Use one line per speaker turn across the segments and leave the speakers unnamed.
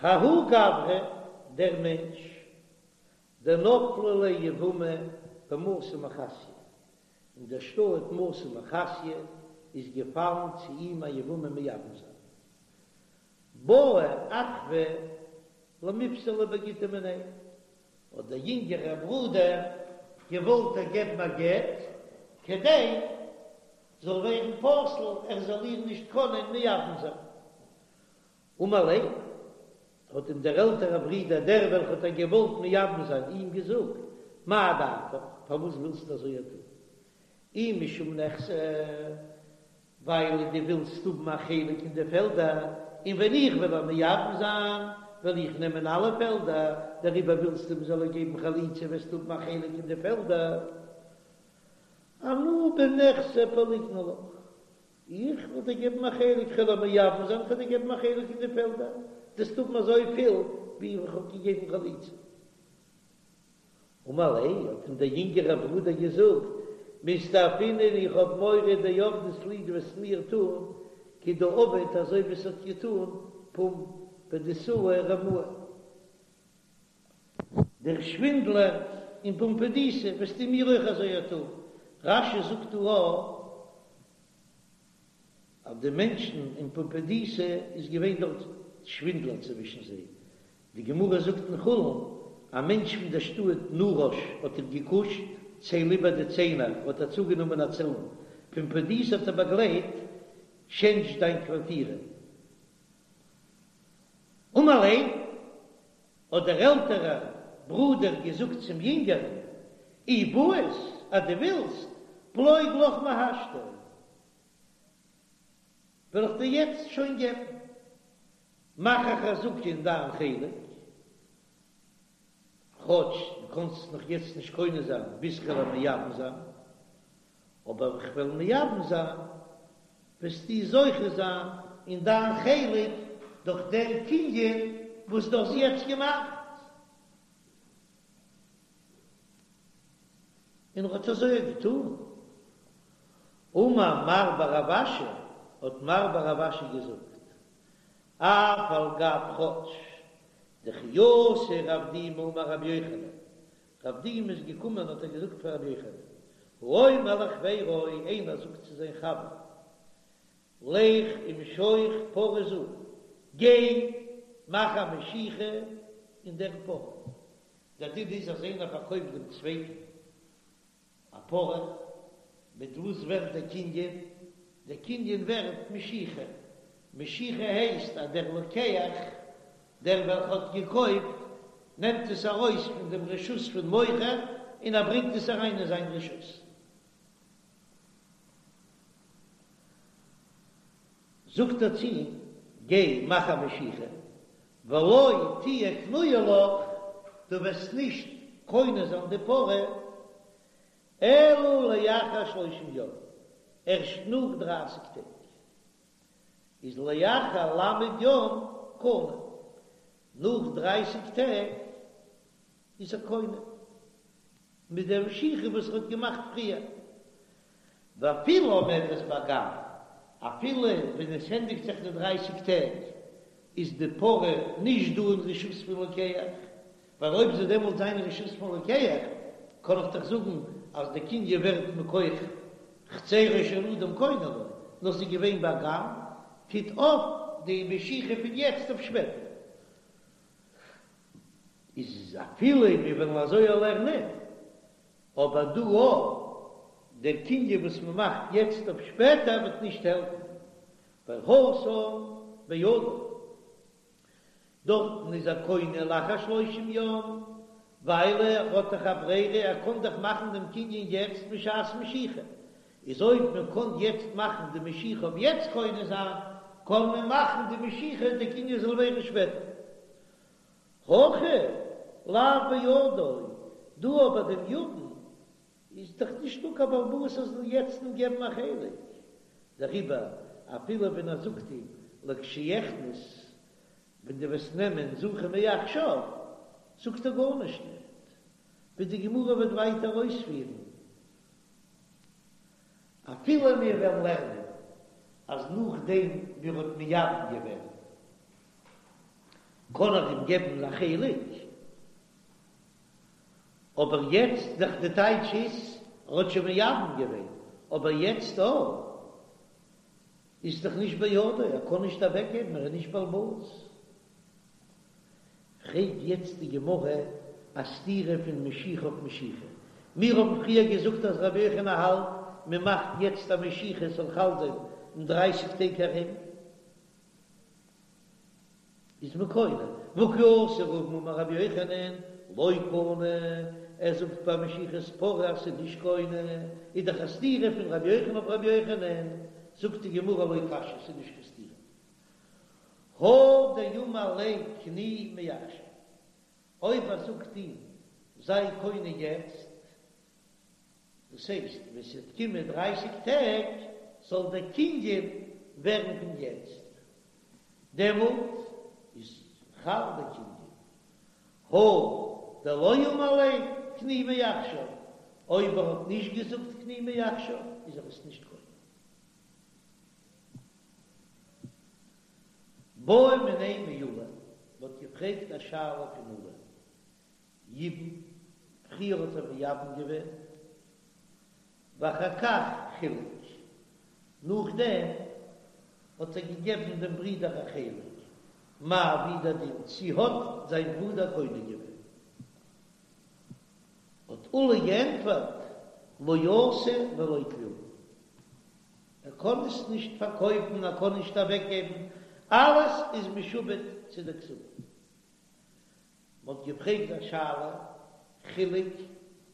ההוא גברא, דער מענטש, דנפלה ליה יבמה במתא מחסיא, אין דער שטאט מתא מחסיא איז געפאלן צו אים א יבמה מייבם זיין. בעא אחוה למיפסלה בגיטא מיניה, האט דער יונגערער ברודער געוואלט איר געבן א גט, כדי זאל ווערן פסול, ער זאל איר נישט קענען מייבם זיין. אמר ליה, האט אים דער עלטערער ברודער, דער וועלכער האט איר געוואלט מייבם זיין, אים געזאגט, מאי דעתיך, פארוואס ווילסטו אזוי טון? אי משום נכסי, ווייל דו ווילסט האבן א חלק אין די פעלדער, און ווען איך וועל איר מייבם זיין, וועל איך נעמען אלע פעלדער, דעריבער ווילסטו מ'זאל איר געבן חליצה, וועסטו האבן א חלק אין די פעלדער. אנא בנכסי פליגנא לך, איך וועל דיר געבן א חלק, כ'וועל איר מייבם זיין, כ'וועל דיר געבן א חלק אין די פעלדער, דו וועסט האבן אזויפיל ווי איך האב געגעבן חליצה. אמר ליה, האט אים דער יונגערער ברודער געזאגט, מסתפינא איך האב מורא דעבדת לי דו וועסט מיר טון כדעבד אזוי ווי עס האט געטון פומבדיתאה רמאי דער שווינדלער אין פומבדיתא וועסטו מיר אויך אזוי טון, רש"י זאגט דא א אז די מענטשן אין פומבדיתא איז געווען דארט שווינדלער צווישן זיי, די גמרא זאגט אין חולין, א מענטש פון דער שטאט נרש האט איר געקושט, צייל איבער די ציינער, האט ער צוגענומען א צאן, פומבדיתא האט ער באגלייט, טשענדזש דיין קווארטירע. אמר ליה, האט דער עלטערער ברודער געזאגט צום יונגערן, אי בעית, אז דו ווילסט, פלוג לך מהשתא, וועל איך דיר יעצט שוין געבן. מאך א חזקה אין דיין חלק, כאטש דו קאנסט עס נאך יעצט נישט קונה זיין ביז כ'וועל איר מייבם זיין, אבער ווען כ'וועל מייבם זיין וועסטו זוכה זיין אין דיין חלק דורך דעם קנין וואס דו האסט יעצט געמאכט. און ער האט אזוי געטאן. אמר מר בר רב אשי, האט מר בר רב אשי געזאגט, אף על גב כאטש דכי אתא רב דימי אמר רבי יוחנן, רב דימי איז געקומען האט ער געזאגט פאר רבי יוחנן, האומר לחבירו, איינער זאגט צו זיין חבר, לך ומשוך פרה זו, גיי מאך א משיכה אין דער פרה, דער דין איז אז איינער פארקויפט דעם צווייטן א פרה, מיט וואס ווערט דער קנין? דער קנין ווערט משיכה, משיכה הייסט אז דער לוקח, דער וועלכע האט געקויפט, נעמט עס ארויס פון דעם רשות פון מוכר און ער ברענגט עס אריין אין זיין רשות. זאגט ער צו אים, גיי מאך א משיכה, ולא תהיה קנויה לך, דו וועסט נישט קונה זיין די פרה, אלא לאחר שלושים יום, ערשט נאך דרייסיג טעג, איז לאחר ל' יום קנה, נאך דרייסיג טעג איז ער קונה, מיט דער משיכה וואס ער האט געמאכט פריער. ואפילו עומדת באגם, אפילו ווען עס ענדיגט זיך די דרייסיג טעג, איז די פרה נישט דא אין רשות פון לוקח, ווייל אויב זי דעמאלט זיין אין רשות פון לוקח, קען איך דאך זאגן אז די קנין ווערט מכח חצרו של אדם קונה לו, נאר ס'איז געווען באגם, טוט אויף די משיכה פון יעצט אויף שפעטער. איז אפילו מיר וועלן אזוי לערנען, אבער דא אויך, דער קנין וואס מען מאכט יעצט אויף שפעטער וועט נישט העלפן, ווייל התם בידו, דארטן איז ער קונה לאחר שלושים יום, ווייל ער האט דאך א ברירה, ער קען דאך מאכן דעם קנין יעצט בשעת משיכה, איז אויב מען קען יעצט מאכן די משיכה אויף יעצט קונה זיין, קען מען מאכן די משיכה די קנין זאל ווערן שפעטער. הכא לאו בידו, דא אבער דעם יבם איז דאך נישטא קיין בעל הבית ער זאל יעצט אים געבן א חלק, דעריבער אפילו ווען ער זאגט אים לכשיכנס ווען דו וועסט נעמען זכה מעכשיו, זאגט ער גארנישט נישט, ווי די גמרא וועט ווייטער אויספירן. אפילו מיר וועלן לערנען אז נאכדעם ווי ער האט מייבם געווען. קען ער אים געבן א חלק, אבער יעצט דאך די טייטש איז ער האט שוין מייבם געווען, אבער יעצט אויך איז דאך נישט בידו, ער קען נישט אוועק געבן, ער איז נישט בעל הבית. פרעגט יעצט די גמרא א סתירה פון משיכה אויף משיכה. מיר האבן פריער געזאגט אז רבי יוחנן האלט מען מאכט יעצט א משיכה עס זאל חל זיין אין דרייסיג טעג ארום איז מען קונה, והא כי אתא רבין אמר רבי יוחנן לא קנה, ער זאגט ביי משיכת פרה אז ס'איז נישט קונה, איז דאך א סתירה פון רבי יוחנן אויף רבי יוחנן, זאגט די גמרא לא קשיא ס'איז נישט קיין סתירה. הא דאמר ליה קני מעכשיו, אויב ער זאגט אים זיי קונה יעצט, דאס הייסט ווען ס'וועט קומען דרייסיג טעג זאל דער קנין ווערן פון יעצט, דעמאלט איז חל דער קנין. הא דלא אמר ליה קני מעכשיו, אויב ער האט נישט געזאגט קני מעכשיו איז ער עס נישט קונה. בעו מיניה מעולא, מ'האט געפרעגט א שאלה פון עולא, יבם, פריער האט ער מייבם געווען, ואחר כך חילק, נאכדעם האט ער געגעבן דעם ברודער א חלק, מהו ווי דער דין, צי האט זיין ברודער קונה געווען? האט עולא געענטפערט, לא עשה ולא כלום. ער קען עס נישט פארקויפן, ער קען נישט אוועקגעבן, אלעס איז משועבד צו די כתובה. מען האט געפרעגט א שאלה, חילק,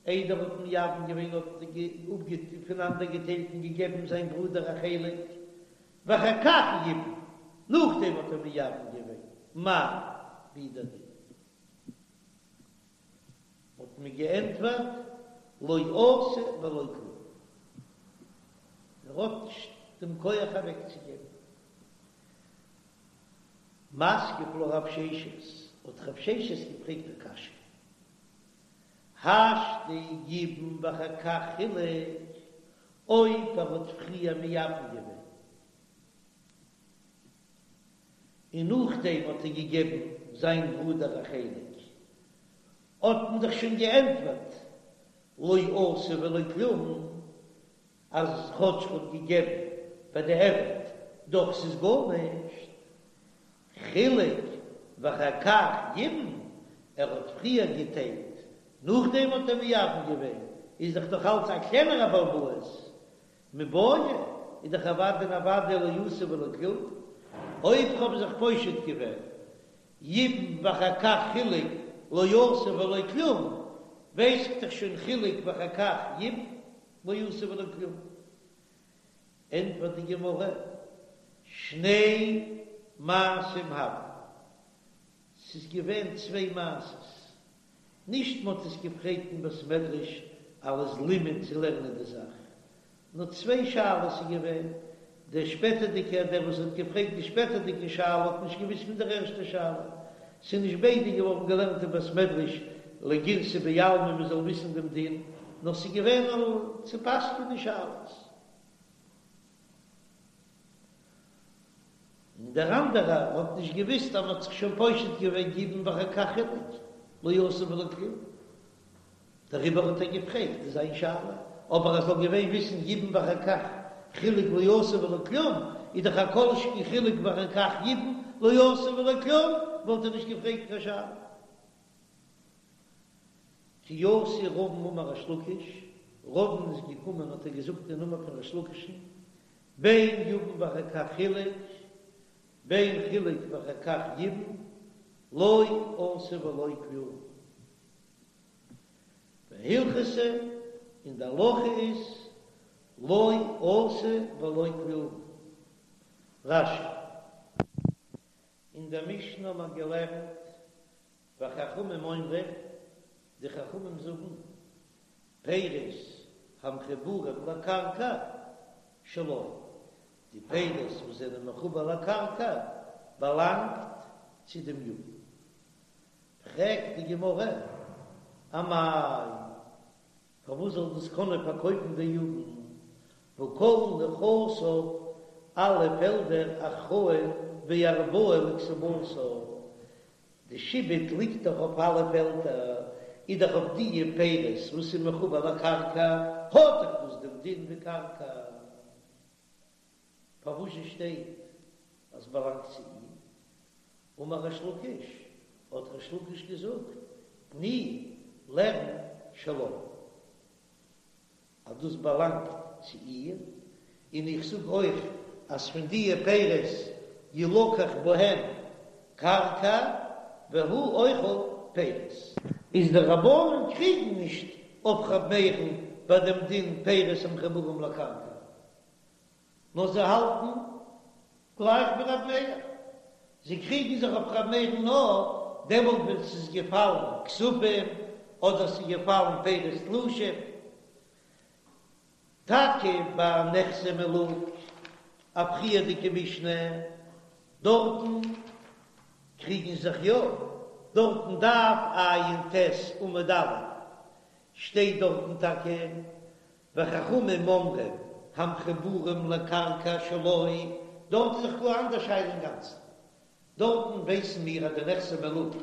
איידער האט מייבם געווען האט ער פונאנדערגעטיילט און געגעבן זיין ברודער א חלק, ואחר כך ייבם, נאכדעם האט ער מייבם געווען, מהו, ווי דער דין. האט מען געענטפערט, לא עשה ולא כלום. ער האט נישט דעם כח אוועקצוגעבן. מתקיף לה רב ששת, האט רב ששת געפרעגט א קשיא, השתא ייבם ואחר כך חילק, אויב ער האט פריער מייבם געווען, און נאכדעם האט ער געגעבן זיין ברודער א חלק, האט מען דאך שוין געענטפערט לא עשה ולא כלום, אז כאטש ער האט געגעבן בדיעבד, דאך ס'איז גארנישט, חילק ואחר כך ייבם, ער האט פריער געטיילט, נאכדעם האט ער מייבם געווען, איז דאך נאך אלץ א קלענערע בעל הבית, מיבעיא איז דאך אוודאי און אוודאי לא עשה ולא כלום, אויב כ'האב זיך פושט געווען ייבם ואחר כך חילק לא עשה ולא כלום, ווייס איך דאך שוין חילק ואחר כך ייבם לא עשה ולא כלום. ענטפערט די גמרא, שני מעשים הוו, ס'איז געווען צוויי מעשות, נישט מ'האט עס געפרעגט אין בית מדרש אלס לימוד צו לערנען די זאך, נאר צוויי שאלות איז געווען, דער שפעטערדיגער, דער וואס האט געפרעגט די שפעטערדיגע שאלה האט נישט געוואוסט פון דער ערשטער שאלה, ס'איז נישט ביידע געווארן געלערנט אין בית מדרש לגירסא בעלמא מ'זאל וויסן דעם דין, נאר ס'איז געווען צו פסק'נען שאלות. און דער אנדערער האט נישט געוויסט אז מען האט זיך שוין פושט געווען ייבם ואחר כך חילק לא עשה ולא כלום, דעריבער האט ער געפרעגט זיין שאלה, אבער ער זאל געווען וויסן ייבם ואחר כך חילק לא עשה ולא כלום, איז דאך א כל שכן חילק ואחר כך ייבם לא עשה ולא כלום, וואלט ער נישט געפרעגט קיין שאלה. כי אתא רבין אמר ריש לקיש, רבין איז געקומען האט ער געזאגט אין נאמען פון ריש לקיש'ן, בין יבם ואחר כך חילק, בין חילק ואחר כך ייבם, לא עשה ולא כלום. והלכתא, און די הלכה איז, לא עשה ולא כלום. רש"י. אין דער משנה האט מען געלערנט וחכמים אומרים, די חכמים זאגן, פירות המחוברים לקרקע שלו, די פירות וואס זענען מחובר לקרקע באלאנגט צו דעם יבם. פרעגט די גמרא, אמאי, פארוואס זאל דאס קענען פארקויפן דער יבם, והא כל נכסיו, אלע פעלדער אחראין וארבעה לכתובתה? די שעבוד ליגט דאך אויף אלע פעלדער, איז דאך אויף דיע פירות וואס איז מחובר לקרקע, האט דאך דאס דעם דין ווי קרקע. פארוואס שטייט אז באלאנגט צו אים? אמר ריש לקיש, האט ריש לקיש געזאגט, תני, לערן שלה, אז דאס באלאנגט צו איר, און איך זאג אויך אז פון דיע פירות ילקח בהם קרקע והוא אוכל פירות. איז די רבנן קריגן נישט אויף ר' מאיר'ן ביי דעם דין פירות המחוברים לקרקע, נאר זיי האלטן גלייך ווי ר' מאיר, זיי קריגן זיך אויף ר' מאיר'ן נאר דעמאלט ווען ס'איז געפאלן כספים אדער ס'איז געפאלן פירות תלושים. טאקע ביי נכסי מלוג, א פריערדיגע משנה, דארטן קריגן זיך יא, דארטן דף ע"ט עמוד א' שטייט דארטן טאקע וחכמים אומרים המחוברים לקרקע שלו, דארט איז דאך גאר אנדער שאלה אינגאנצן, דארטן ווייסן מיר אז די נכסי מלוג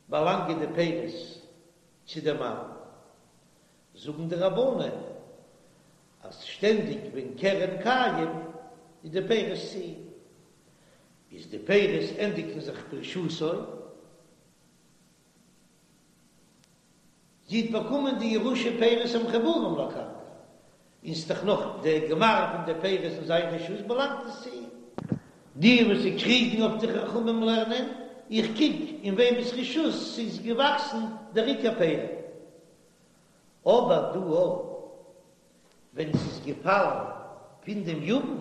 באלאנגען די פירות צו די מאן, זאגן די רבנן אז שטענדיג ווען קרן קיים איז די פירות צו אים, איז די פירות ענדיגן זיך ברשותו. זי האט באקומען די ירושה פירות המחוברים לקרקע, און ס'איז דאך נאך די גמר פון די פירות אין זיין רשות באלאנגט עס צו אים. די וואס זיי קריגן אויף די חכמים לערנען, איך קוק אין וועמענס רשות ס'איז געוואקסן דער עיקר פירות. אבער דא ווען ס'איז געפאלן פון דעם יבם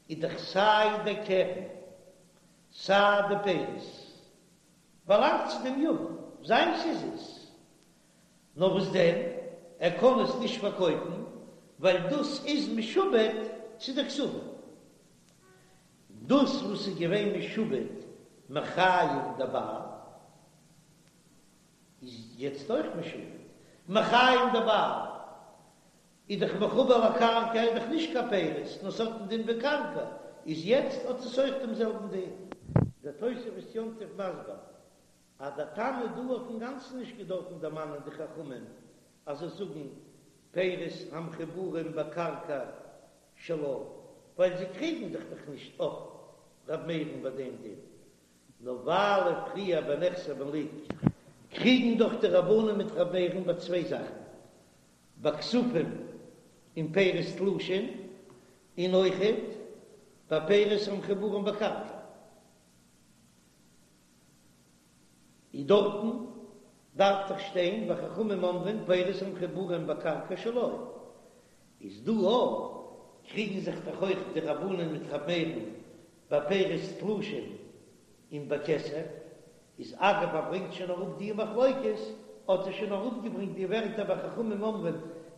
איז דאך סיי דער קרן סיי די פירות באלאנגט צו דעם יבם, זיינס איז עס. נאר וואס דען, ער קען עס נישט פארקויפן, ווייל דאס איז משועבד צו די כתובה. דאס וואס איז געווען משועבד מחיים דבעל, איז יעצט אויך משועבד מחיים דבעל. איז דאך מחובר לקרקע איז דאך נישט קיין פירות נאר ס'האט דעם דין ווי קרקע, איז יעצט האט עס אויך דעם זעלבן דין. דער תוספות יום טוב מסביר אז דער תנא דא האט אינגאנצן נישט געדארפן דערמאנען די חכמים אז זיי זאגן פירות המחוברים בקרקע שלה, ווייל זיי קריגן זיך דאך נישט אויף ר' מאיר'ן ביי דעם דין, נאר ווייל פריער ביי נכסי מלוג קריגן דאך די רבנן מיט ר' מאיר'ן ביי צוויי זאכן, ביי כספים און פירות תלושים, און אויכעט ביי פירות המחוברים בקרקע, איז דארטן דארף דאך שטיין וחכמים אומרים פירות המחוברים בקרקע שלו, איז דא אויך קריגן זיך דאך אויך די רבנן מיט ר' מאיר'ן ביי פירות תלושים און ביי כסף, איז אגב ער ברענגט שוין אראפ די מחלוקת, האט ער שוין אראפגעברענגט די ווערטער וחכמים אומרים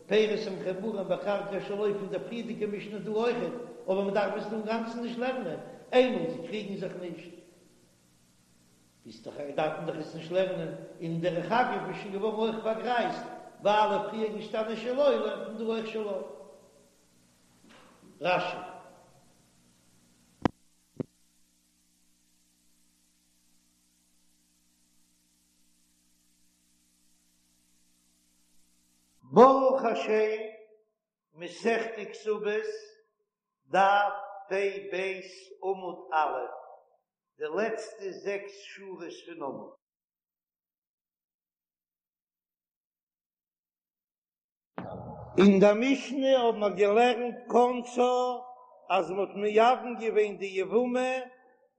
פירות המחוברים בקרקע שלו פון דער פריערדיגע משנה דא אויכעט, אבער מען דארף עס דא אינגאנצן נישט לערנען, איינמאל זיי קריגן זיך נישט איז דאך דארף מען דאך עס נישט לערנען, און דרך אגב איז שוין געווארן אויך פארגרייזט ווייל אויף פריער געשטאנען שלו לערנט מען דא אויך שלו. רש"י. ברוך השם, מסכת כתובות, דף פ"ב עמוד א', די לעצטע זעקס שורות פון עמוד. אין דער משנה האבן מיר געלערנט כנסה אז מען האט מייבם געווען די יבמה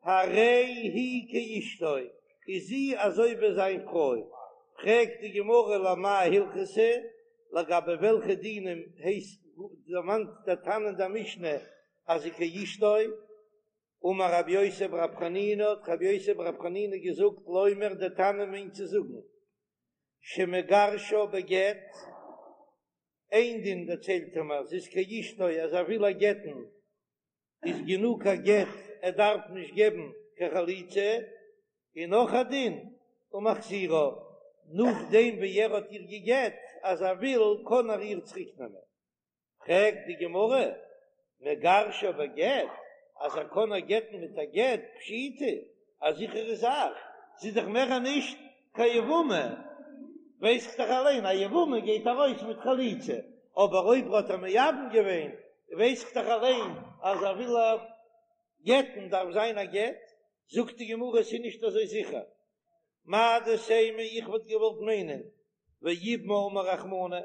הרי היא כאשתו, איז זי אזוי ווי זיין פרוי, פרעגט די גמרא למאי הלכתא, לגבי וועלכע דינים הייסט דערמאנט דער תנא אין דער משנה אז זי כאשתו, אמר רבי יוסי ברבי חנינא האט רבי יוסי ברבי חנינא געזאגט לומר דער תנא מיינט צו זאגן שמגרשה בגט, איין דין דערציילט ער מיר, זי איז כאשתו אז ער וויל איר גט'ן איז גענוג א גט ער דארף נישט געבן קיין חליצה, און נאך א דין ומחזירה, נאכדעם ווי ער האט איר געגט אז ער וויל קען ער איר צוריק נעמען. פרעגט די גמרא, מגרשה בגט, אז ער קען איר גט'ן מיט א גט, פשיטא. א זיכערע זאך, זי איז דאך מער נישט קיין יבמה, ווייס איך דאך אליין א יבמה גייט ארויס מיט חליצה, אבער אויב האט ער מייבם געווען ווייס איך דאך אליין אז ער וויל איר גט'ן דארף זיין א גט, זאגט די גמרא עס איז נישט אזוי זיכער, מהו דתימא איך וואלט געוואלט מיינען ויבמה אמר רחמנא,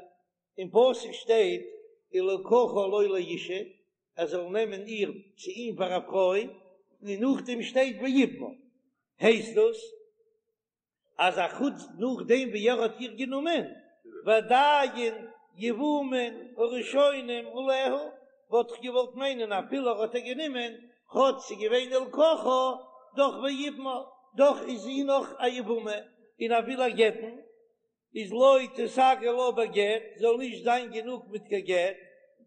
אין פסוק שטייט ולקחה לו לאשה, ער זאל נעמען איר צו אים פאר א פרוי, און נאכדעם שטייט ויבמה, הייסט דאס אז א חוץ נאכדעם ווי ער האט איר גענומען, ועדיין יבומין הראשונים עליה, וואלט איך געוואלט מיינען אפילו ער האט איר גענומען, כאטש ס'איז געווען ולקחה, דאך ויבמה, דאך איז זי נאך א יבמה, און ער וויל איר גט'ן, איז לא תיסגי לה בגט, זאל נישט זיין גענוג מיט קיין גט,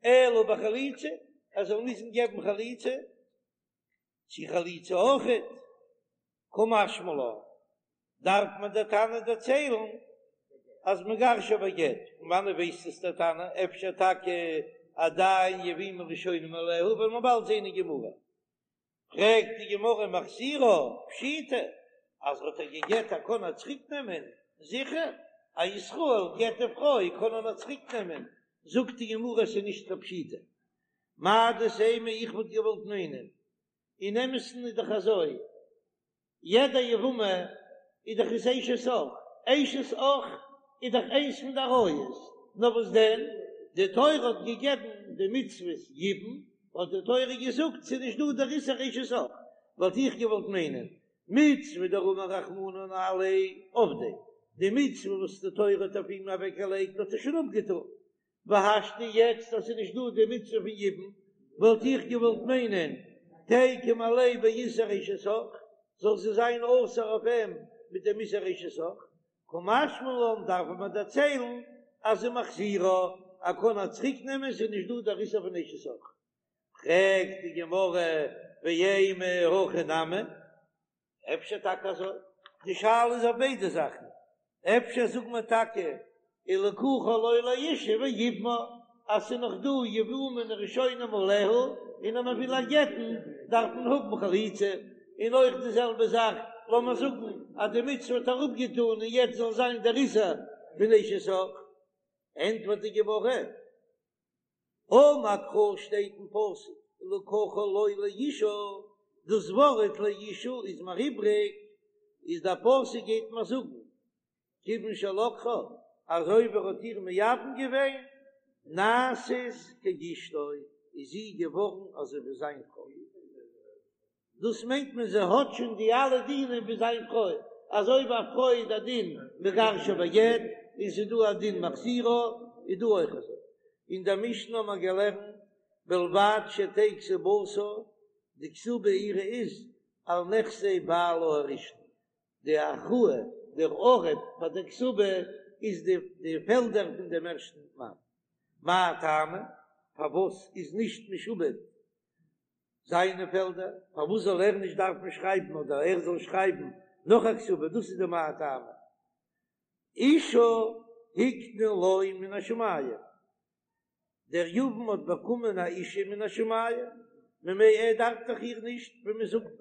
אלא בחליצה, ער זאל מוזן געבן חליצה, צו חליצה אויכעט, קא משמע לן, דארף מען דער תנא דערציילן אז מגרשה בגט, פון וואנעט ווייסט עס דער תנא, אפשר טאקע עדיין יבומין ראשונים עליה, וועלן מיר באלד זען אין גמרא. פרעגט די גמרא מחזירה פשיטא אז האט ער געגעט ער קען איר צוריק נעמען, זיכער א ישראל גט די פרוי קען ער נאר צוריק נעמען, זאגט די גמרא עס איז נישט קיין פשיטא, מהו דתימא איך וואלט געוואלט מיינען אין אמת'ן איז דאך אזוי יעדע יבמה איז דאך איז אשת אח, אשת אח איז דאך איינס פון די עריות, נאר וואס דען, די תורה האט געגעבן די מצוות יבום, האט די תורה געזאגט ס'איז נישט דא דער איסור אשת אח, וואלט איך געוואלט מיינען, מצוה דרמא רחמנא עליה עבדיה, די מצוה וואס די תורה האט אויף אים אוועקגעלייגט האט ער שוין אפגעטון, והשתא יעצט אז ס'איז נישט דא די מצוה פון יבום, וואלט איך געוואלט מיינען תיקום עליה באיסור אשת אח, זאל זי זיין אסור אויף אים מיט דעם איסור אשת אח, קא משמע לן דארף מען דערציילן אז ומחזירה, ער קען איר צוריק נעמען ס'איז נישט דא דער איסור פון אשת אח. פרעגט די גמרא ואימא הכי נמי, אפשר טאקע אזוי? די שאלה איז אויף ביידע זאכן, אפשר זאגט מען טאקע ולקחה לו לאשה ויבמה אז ס'איז נאך דא יבומין ראשונים עליה, און אז מ'וויל איר גט'ן דארף מען האבן חליצה, און אויך די זעלבע זאך לאמיר זאגן אז די מצוה האט ער אפגעטאן און יעצט זאל זיין דער איסור פון אשת אח, ענטפערט די גמרא. אמר קרא שטייט אין פסוק ולקחה לו לאשה, דאס ווארט לאשה איז מיר איבריג, איז דער פסוק גייט מיר זאגן כיוון שלקחה, אזוי ווי ער האט איר מייבם געווען, נעשית כאשתו, איז זי געווארן אזוי ווי זיין פרוי. דאס מיינט מען זי האט שוין די אלע דינים ווי זיין פרוי, אזוי ווי א פרוי איז א דין מגרשה בגט, און ס'איז דא א דין מחזירה, איז דא אויך אזוי. אין דער משנה האט מען געלערנט בלבד שתהא כתובתה, די כתובה אירע איז על נכסי בעלה הראשון, די הכרעה, דער ערב פאר דער כתובה איז די די פעלדער פון דעם ערשטן מאן. מאי טעמא? פארוואס איז נישט משועבד זיינע פעלדער, פארוואס זאל ער נישט דארפן שרייבן אדער ער זאל שרייבן נאך א כתובה, דאס איז די מאי טעמא. אשה הקנו לו מן השמים, דער יבם האט באקומען א אישה מן השמים, ממילא ער דארף דאך איר נישט ווי מען זאגט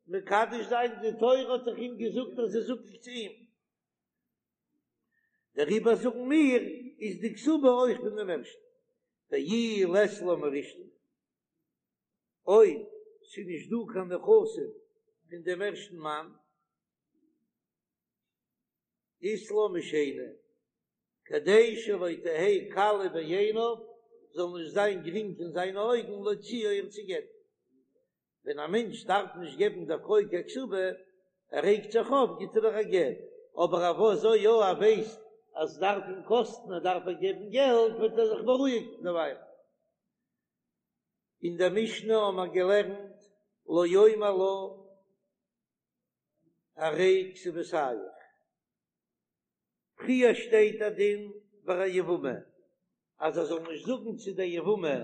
מקדש זיין, די תורה האט דאך אים געזאגט אז זי איז זקוק צו אים, דעריבער זאגן מיר איז די כתובה אויך פון דעם ערשטן, ואי לית לה מראשון. אויב ס'איז נישט דא קיין נכסים פון דעם ערשטן מאן, אית לה משני, כדי שלא תהא קלה בעיניו, זאל נישט זיין גרינג אין זיינע אויגן להוציאה איר צו גט'ן. ווען א מענטש דארף נישט געבן דער פרוי קיין כתובה, ער רעגט זיך אויף, גיט ער איר א גט, אבער אויב אזוי יא, ער ווייסט אז ס'דארף אים קאסטן, ער דארף איר געבן געלט, וועט ער זיך בארואיגן דערווייל. אין דער משנה האבן מיר געלערנט לא יאמר לה הרי כתובתיך, פריער שטייט א דין ביי א יבמה אז ער זאל נישט זאגן צו דער יבמה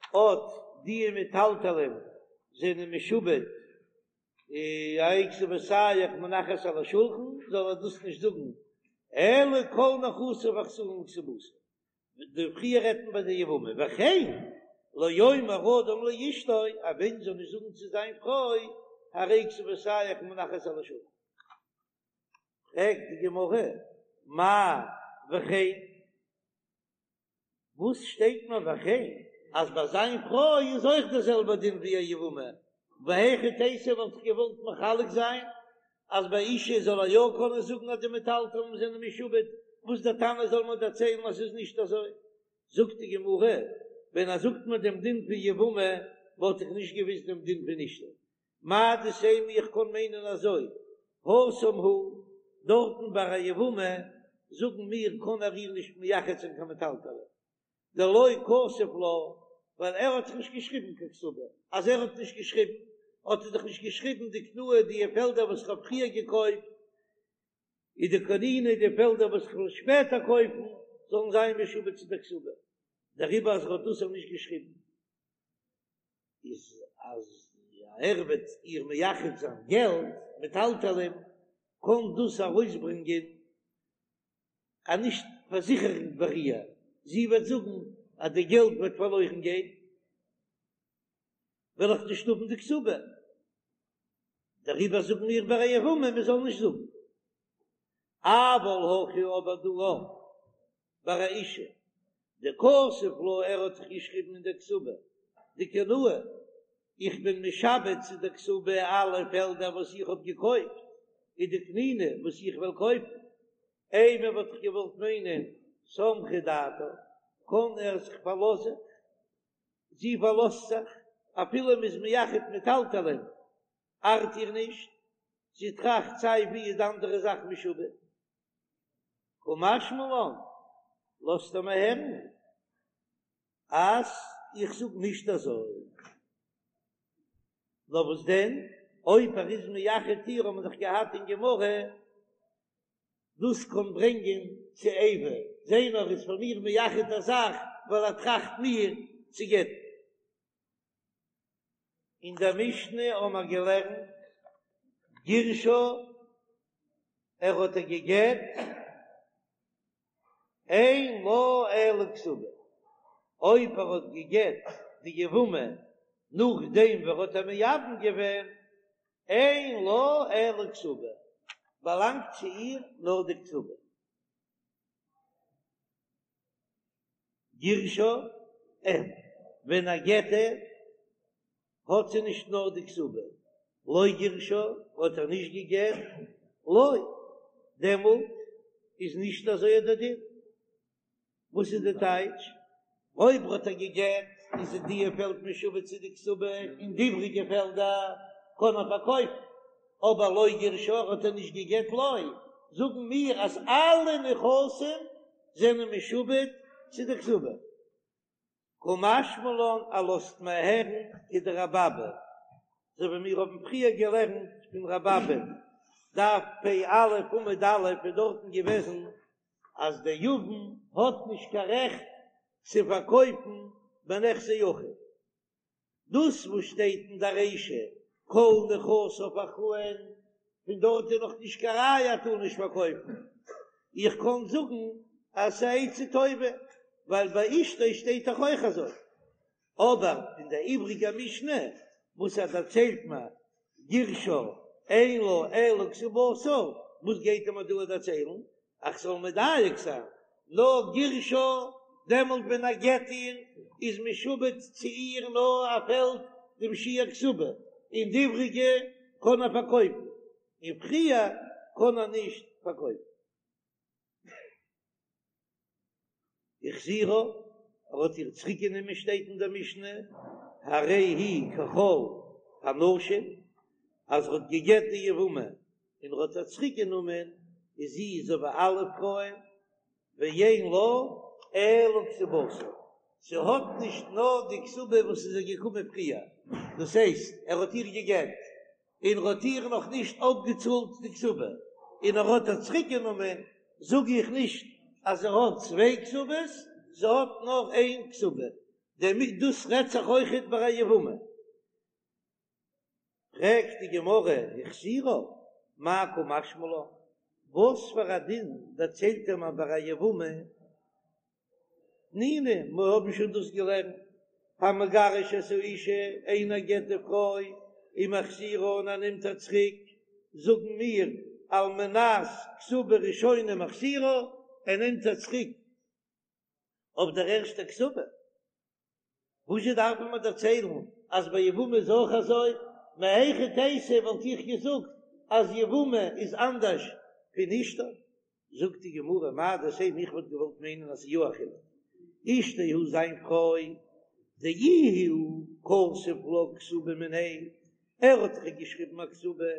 אט די מטלטלין זענען משועבד הרי כתובתיך מונחת על השולחן זאל ער דאס נישט זאגן אלא כל נכסיו אחראין לכתובתה די פריער רעדט מען ביי די יבמה, וכן לא יאמר אדם לאשתו, א מענטש זאל נישט זאגן צו זיין פרוי. הרי כתובותיך מונחת על השולחן. פרעגט די גמרא, מאי וכן? וואס שטייט מיר וכן אז ביי זיין פרוי איז אויך דער זעלבער דין ווי א יבמה, והיכי תיתי וואלט איך געוואלט מחלק זיין אז ביי אשה זאל ער יא קענען זאגן אז די מטלטלין זענען משועבד, וואס דער תנא זאל מיר דערציילן אז ס'איז נישט אזוי? זאגט די גמרא, ווען ער זאגט מיר דעם דין פון יבמה וואלט איך נישט געוויסט דעם דין פון אשתו, מהו דתימא איך קען מיינען אזוי, התם הוא, דארטן ביי א יבמה זאגן מיר קען ער איר נישט מייחד זיין קיין מטלטלין, דלא כתב לה, ווייל ער האט דאך נישט געשריבן קיין כתובה, אז ער האט נישט געשריבן האט ער דאך נישט געשריבן דקנאי די פעלדער וואס איך האב פריער געקויפט, ודקניני די פעלדער וואס איך וועל שפעטער קויפן זאלן זיין משועבד צו דער כתובה, דעריבער אז ער האט דאס נישט געשריבן. איז אז ער וועט איר מייחד זיין געלט מטלטלין קען דאס ארויסברענגען א נישט פארזיכערונג ביי איר, זי וועט זאגן אז די געלט וועט פארלוירן גיין וועל איך נישט האבן די כתובה, דעריבער זאגן מיר ביי א יבמה מען זאל נישט זאגן. אבל הכא אבער דא ביי א אשה דכתב לה ער האט דאך געשריבן אין דער כתובה דקנאי איך בין משעבד צו דער כתובה אלע פעלדער וואס איך האב געקויפט ודקניני וואס איך וועל קויפן אימא וואלט איך געוואלט מיינען סמכה דעתה קען ער זיך פארלאזען זי פארלאזט זיך אפילו מ'איז מייחד מטלטלין ארט איר נישט זי טראכט סיי ווי איז די אנדערע זאך משועבד. קא משמע לן, לאזט ער מיר הערן אז איך זאג נישט אזוי. נאר וואס דען, אויב ער איז מייחד איר האט מען דאך געהאט אין גמרא, דאס קען ברענגען צו איבה, זע נאר ער איז פאר מיר מייחד א זאך ווייל ער טראכט מיר צו גט'ן. אין דער משנה האבן מיר געלערנט גירשה, ער האט איר געגט, אין לה אלא כתובה, אויב ער האט געגט די יבמה נאכדעם ווי ער האט איר מייבם געווען, אין לה אלא כתובה, באלאנגט צו איר נאר די כתובה. גירשה, אין, ווען ער גט איר, האט זי נישט נאר די כתובה, לא גירשה, האט ער נישט געגט, לא, דעמאלט איז נישט אזוי דער דין. וואס איז די טייטש? אויב האט ער געגט איז די פעלד משועבד צו די כתובה און די איבריגע פעלדער קען ער פארקויפן, אבער לא גירשה האט ער נישט געגט לא, זאגן מיר אז אלע נכסים זענען משועבד צו די כתובה. קא משמע לן ער לאזט מיר הערן כדרבי אבא, אזוי ווי מיר האבן פריער געלערנט פון רבי אבא, דף פ"א עמוד א' איז דארטן געוועזן אז דער יבם האט נישט קיין רעכט צו פארקויפן בנכסי אחיו. דאס וואס שטייט אין די רישא כל נכסיו אחראין, פון דארט איז נאך נישט קיין ראיה ער טאר נישט פארקויפן. איך קען זאגן אז ס'איז א עצה טובה, ווייל ביי אשתו שטייט דאך אויך אזוי. אבער אין די איבריגע משנה וואס ער דערציילט מיר גירשה אין לה אלא כתובתה, וואס גייט ער מיר דא דערציילן? איך זאל מדייק זיין, נאר גירשה, דעמאלט ווען ער גט איר איז משועבד צו איר נאר א פעלד דעם שיעור כתובה, און די איבריגע קען ער פארקויפן, און פריער קען ער נישט פארקויפן. החזירה, ער האט איר צוריק גענומען שטייט אין דער משנה, הרי היא ככל הנשים, אז ער האט געגט די יבמה און ער האט איר צוריק גענומען, איז זי אזוי ווי אלע פרויען, ואין לה אלא כתובתה, זי האט נישט נאר די כתובה וואס איז איר געקומען פריער, דאס הייסט ער האט איר געגט און ער האט איר נאך נישט אפגעצאלט די כתובה, און ער האט איר צוריק גענומען, זאג איך נישט אז זי האט צוויי כתובות, זי האט נאר איין כתובה, דערמיט דאס רעדט זיך אויכעט ביי א יבמה. פרעגט די גמרא, החזירה, מאי קא משמע לן, וואס פאר א דין דערציילט ער מיר ביי א יבמה? תנינא, מיר האבן שוין דאס געלערנט, המגרש את האשה, איינער גט די פרוי. ומחזירה און ער נעמט איר צוריק, זאגן מיר על מנת כתובה ראשונה מחזירה, ער נעמט איר צוריק אויף דער ערשטער כתובה. וואזשע דארף מען מיר דערציילן אז ביי יבמה איז אויך אזוי? מהיכי תיתי וואלט איך געזאגט אז יבמה איז אנדערש פון אשתו. זאגט די גמרא מהו דתימא איך וואלט געוואלט מיינען אז ס'איז יא א חילוק, אשתו הוא זיין פרוי דאיהו כתב לה כתובה מיניה, ער האט דאך געשריבן א כתובה,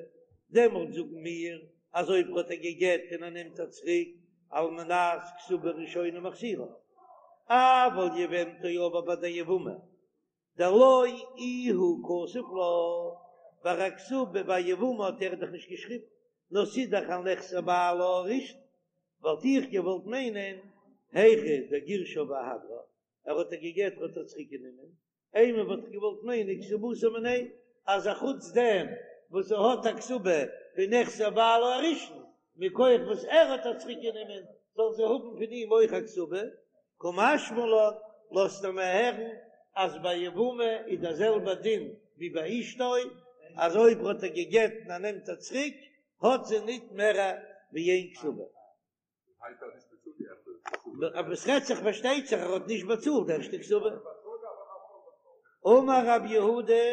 דעמאלט זאגן מיר אז אויב האט ער גע'גט און ער נעמט איר צוריק על מנת כתובה ראשונה מחזירה, אבל יבמתו אבער ביי די יבמה דלא איהו כתב לה, ביי א כתובה ביי יבמה האט ער דאך נישט געשריבן, נאר ס'איז דאך על נכסי בעלה הראשון, וואלט איך געוואלט מיינען היכא דגירשה ואהדרה, ער האט איר גע'גט האט ער צוריק גענומען, אימא וואלט איך געוואלט מיינען כתובתה מיניה, אז א חוץ דעם וואס זי האט א כתובה פון נכסי בעלה הראשון, מכח וואס ער האט איר צוריק גענומען, זאל זי האבן פון אים אויך א כתובה, קא משמע לן, לאזט ער מיר הערן אז ביי יבמה איז דער זעלבער דין ווי ביי אשתו, אז אויב האט ער גע'גט און ער נעמט איר צוריק, האט זי ניט מער ווי איין כתובה. אבער עס רעדט זיך פארשטייט זיך ער האט נישט באצאלט די ערשטע כתובה. אמר רב יהודה,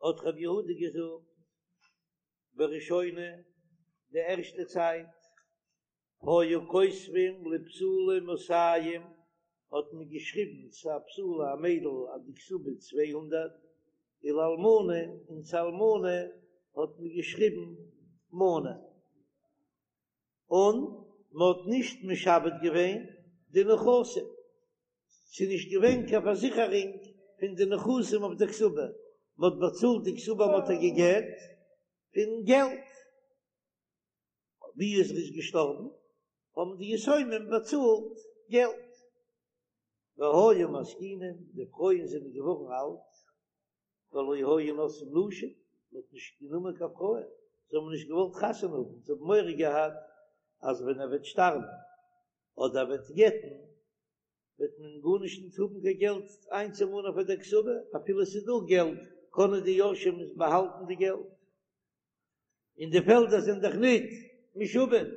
האט רב יהודה געזאגט, בראשונה, די ערשטע צייט, היו כותבים לבתולה מאתים, האט מען געשריבן צו א בתולה א מיידל אז די כתובה 200, ולאלמנה און צו אלמנה האט מען געשריבן מנה, און מען האט נישט משעבד געווען די נכסים, ס'איז נישט געווען קיין פארזיכערונג פון די נכסים אויף די כתובה, מען האט באצאלט די כתובה מען האט איר גע'גט פון געלט. ווי איז ער איז געשטארבן האבן די יתומים באצאלט געלט, והיו מזקינים, די פרויען זענען געווארן אלט, ולא היו נושאים נשים, מען האט נישט גענומען קיין פרויען, זיי האבן נישט געוואלט חתונה האבן, זיי האבן מורא געהאט אז ווען ער וועט שטארבן אדער ער וועט גט'ן וועט מען גארנישט נישט האבן קיין געלט איינצומאנען פאר דער כתובה, אפילו עס איז דא געלט קענען די יורשים עס באהאלטן די געלט. און די פעלדער זענען דאך ניט משועבד,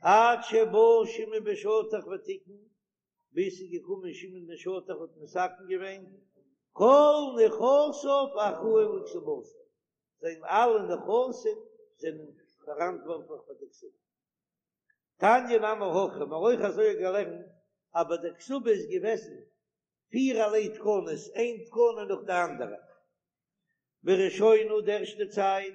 עד שבא שמעון בן שטח ותיקן, ביז ס'איז געקומען שמעון בן שטח האט מתקן געווען, כל נכסיו אחראין לכתובתה, זיין אלע נכסים זענען פאראנטווארטליך פאר די כתובה. תניא נמי הכי, מ'האט אויך אזוי געלערנט, אבער די כתובה איז געוועזן פירערליי תקנות, איין תקנה נאך די אנדערע. בראשונה די ערשטע צייט,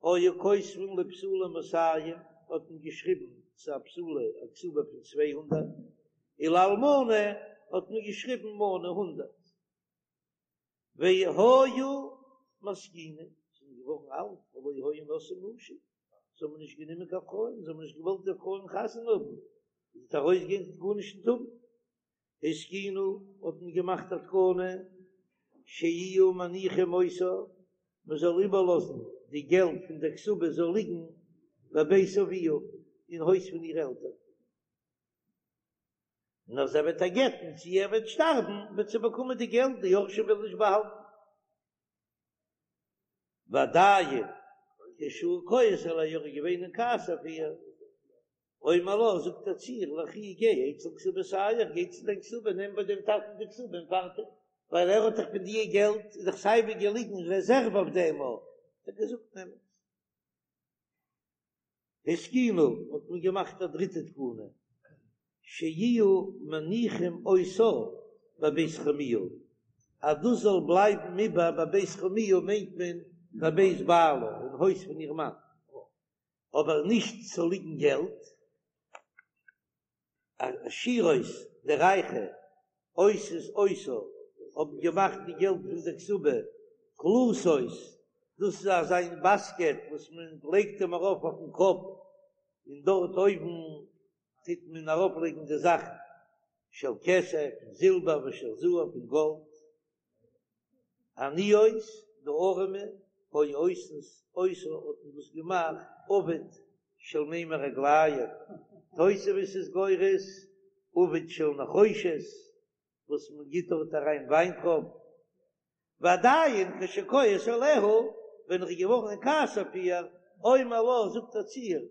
היו כותבין לבתולה מאתים, האט מען געשריבן צו א בתולה א כתובה פון 200, ולאלמנה האט מען געשריבן מנה הונדערט. והיו מזקינים, זענען געווארן אלט, ולא היו נושאים נשים, זיי האבן נישט גענומען קיין פרויען, זיי האבן נישט געוואלט די פרויען חתונה האבן, זי וועט ארויסגיין זי וועט גארנישט נישט האבן. התקינו האט מען געמאכט א תקנה שיהיו מניחים אותה, מען זאל איבערלאזן די געלט פון דער כתובה זאל ליגן בבית אביה, אין הויז פון איר עלטערן, און אז ער וועט איר גט'ן צי ער וועט שטארבן וועט זי באקומען די געלט, די יורשים וועלן נישט באהאלטן. ועדיין כשהוא כועס עליה ער איז געווען אין כעס אויף איר, אומר לה, זאגט ער צו איר, לכי גיי אצל כתובתיך, גיי צו דיין כתובה, נעם ביי דעם טאטן די כתובה און פארטיג, ווייל ער האט דאך פון די געלט, איז דאך סייווי געליגן רעזערוו אויף דעם, האט ער געזאגט נעם עס. התקינו, האט מען געמאכט א דריטע תקנה, שיהיו מניחים אותה בבית חמיה, אז דאס זאל בלייבן איבער בבית חמיה מיינט מען בבית בעלה, אין הויז פון איר מאן. אבער נישט צו ליגן געלט, העשירות די רייכע עושות אותה האבן געמאכט די געלט פון די כתובה קלתות, דאס איז אזא מין באסקעט וואס מען לייגט אים ארויף אויפן קאפ און דארט אויבן טוט מען ארויף לייגן די זאכן של כסף פון זילבער ושל זהב פון גאלד. עניות, די אָרעמע, היו עושות אותה האָט מען דאָס געמאַכט עביט של מימי רגלים, תוספות איז גורס עביט של נחושת, וואָס מען גיט דאָרט אַריין וויינטרויבן. ועדיין כשכועס עליה, ווען ער איז געווארן אין כעס אויף איר, אומר לה, זאגט ער צו איר,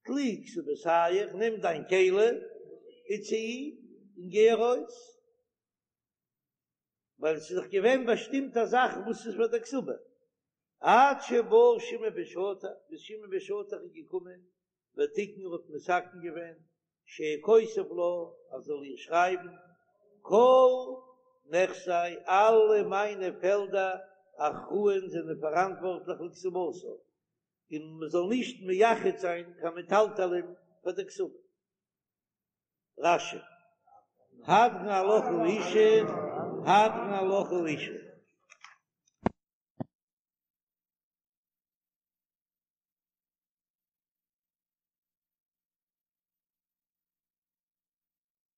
טלי כתובתיך, נעם דיין כלי, וצאי, און גיי ארויס. ווייל עס איז דאך געווען באשטימט א זאך וואס איז פאר דער כתובה. עד שבא שמעון בן שטח, ביז שמעון בן שטח איז געקומען, ותיקן האט מתקן געווען, שיהא כותב לה, ער זאל איר שרייבן, כל נכסי, אלע מיינע פעלדער, אחראין זענען פאראנטווארטליך לכתובתה, און מען זאל נישט מייחד זיין קיין מטלטלין פאר דער כתובה. רש"י, הדרן עלך האשה, הדרן עלך האשה.